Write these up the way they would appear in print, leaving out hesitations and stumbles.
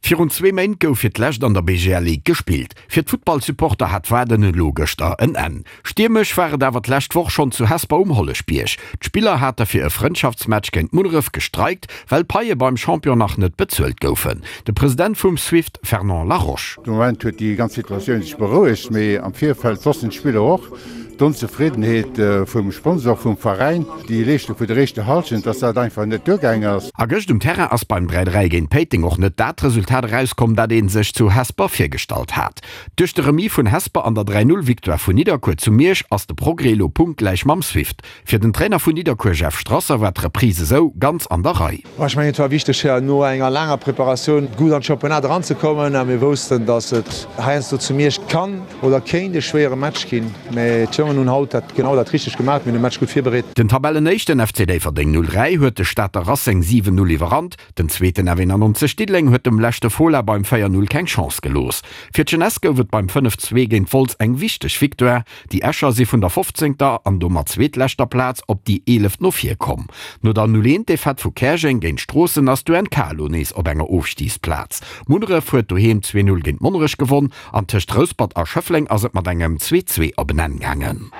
Virun zwee Méint gouf fir d'lescht an der BGL Ligue gespillt. Fir d'Futtballsupporter hat d'Waarden elo gëschter en Enn. Stiermesch war et awer d'lescht Woch schonn zu Hesper um Holleschbierg. D'Spiller hate fir e Frëndschaftsmatch géint Munneref gestreikt, well d'Paie beim Champion nach net bezuelt goufen. De President vum Swift Fernand Laroche. De Moment huet déi ganz Situatioun sech berouegt, mee am Virfeld wossten d'Spiller och, d'Onzefriddenheet vum Sponsor, vum Veräin, déi Leeschtung vun der éischter Hallschent, dass dat einfach net duergaang ass. A gëscht um Terrain ass beim 3, 3 géint Péiteng och net dat Resultat erauskomm, dat ee sech zu Hesper virgestallt hat. Duerch de Remis vun Hesper an der 3, 0 Victoire vun Nidderkuer zu Miersch ass de Progrès elo punktgläich mam Swift. Fir den Trainer vun Nidderkuer Jeff Strasser war d'Reprise esou ganz an der Rei. Ech mengen et war wichteg no enger laanger Preparatioun gutt an d'Championnat eranzekommen a mir woussten, datt et heiansdo zu Miersch kann oder kéint e schwéiere Match ginn. Mä d'Jongen hunn haut dat genau dat richtegt gemaach, mir hunn de Match gutt virbereet. Den Tabellenéischten FC Déifferdeng 03 huet de Stater Racing 7, 0 iwwerrannt. Den zweeten F91 Diddeleng huet dem leschte Fola beim 4, 0 keng Chance gelooss. Fir d'Jeunesse gouf et beim 5, 2 géint Wolz eng wichteg Victoire. Déi Escher si vun der fofzéngter an domat zweetleschter Plaz op déi eeleft no vir komm. No der 0, 1 Defaite vu Käerjeng géint Stroossen ass d'UNK elo nees op enger Ofstigsplaz. Munneref huet doheem 2, 0 géint Monnerech gewonn An tëscht Rouspert a Schëffleng ass et mat engem 2, 2 op en Enn gaangen.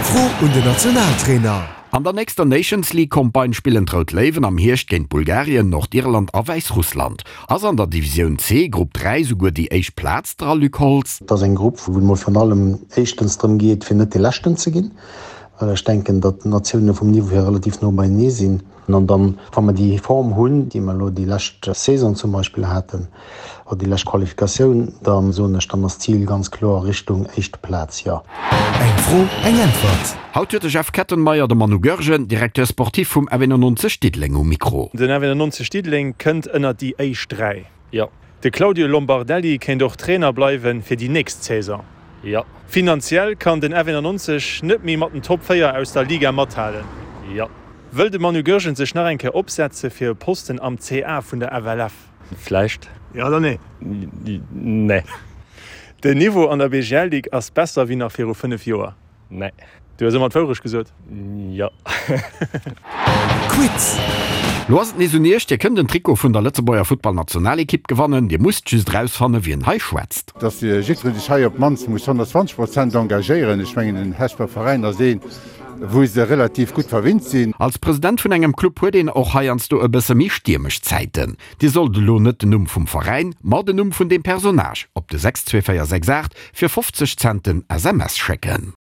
Fro un den Nationaltrainer. An der nächster Nations League Campagne spillen d'Rout Léiwen am Hierscht géint Bulgarien, Nordirland a Wäissrussland. Ass an der Divisioun C, Grupp 3, souguer déi éischt Plaz dra, Luc Holtz? Et ass eng Grupp, wou et mol virun allem éischtens drëm geet, fir net dee Leschten ze ginn, well ech denken, datt d'Natioune vum Niveau hier relativ no beienee sinn. An dann, wa mer déi Form hunn, déi mer elo déi lescht Saison zum Beispill haten, oder déi lescht Qualifikatioun, da soen ech, dann ass d'Zil ganz kloer Richtung éischt Plaz, jo. Eng Fro, eng Äntwert. Haut huet de Jeff Kettenmeyer de Manu Goergen, Directeur sportif vum F91 Diddeleng um Mikro. Den F91 Diddeleng kënnt ënnert déi éischt 3. Jo. De Claudio Lombardelli kéint och Trainer bleiwen fir déi nächst Saison. Jo. Finanziell kann den F91 net méi mat den Top 4 aus der Liga mathalen. Jo. Wëll de Manu Goergen sech nach eng Kéier opsetze fir e Posten am CA vun der FLF? Vläicht. Jo oder nee? Nee. Den Niveau an der BGL-Ligue ass besser wéi nach viru 5 Joer? Nee. Du hues ëmmer d'Wourecht gesot. Jo. Quiz! Lo ass et nees un Iech, Dir kënnt en Trikot vun der Lëtzebuerger Futtballnationalekipp gewannen. Dir musst just erausfannen, wien hei schwätzt. Dass jiddweree sech hei op d'mannst muss 120 Prozent engagéieren. Ech mengen, den Hesper Veräin ass een, wou se relativ gutt verwinnt sinn. Als President vun engem Club huet een och heiansdo e bësse méi stiermesch Zäiten. Dir sollt elo net den Numm vum Veräin, ma den Numm vun deem Personnage op de 62468 fir 50 Cent den SMS schécken.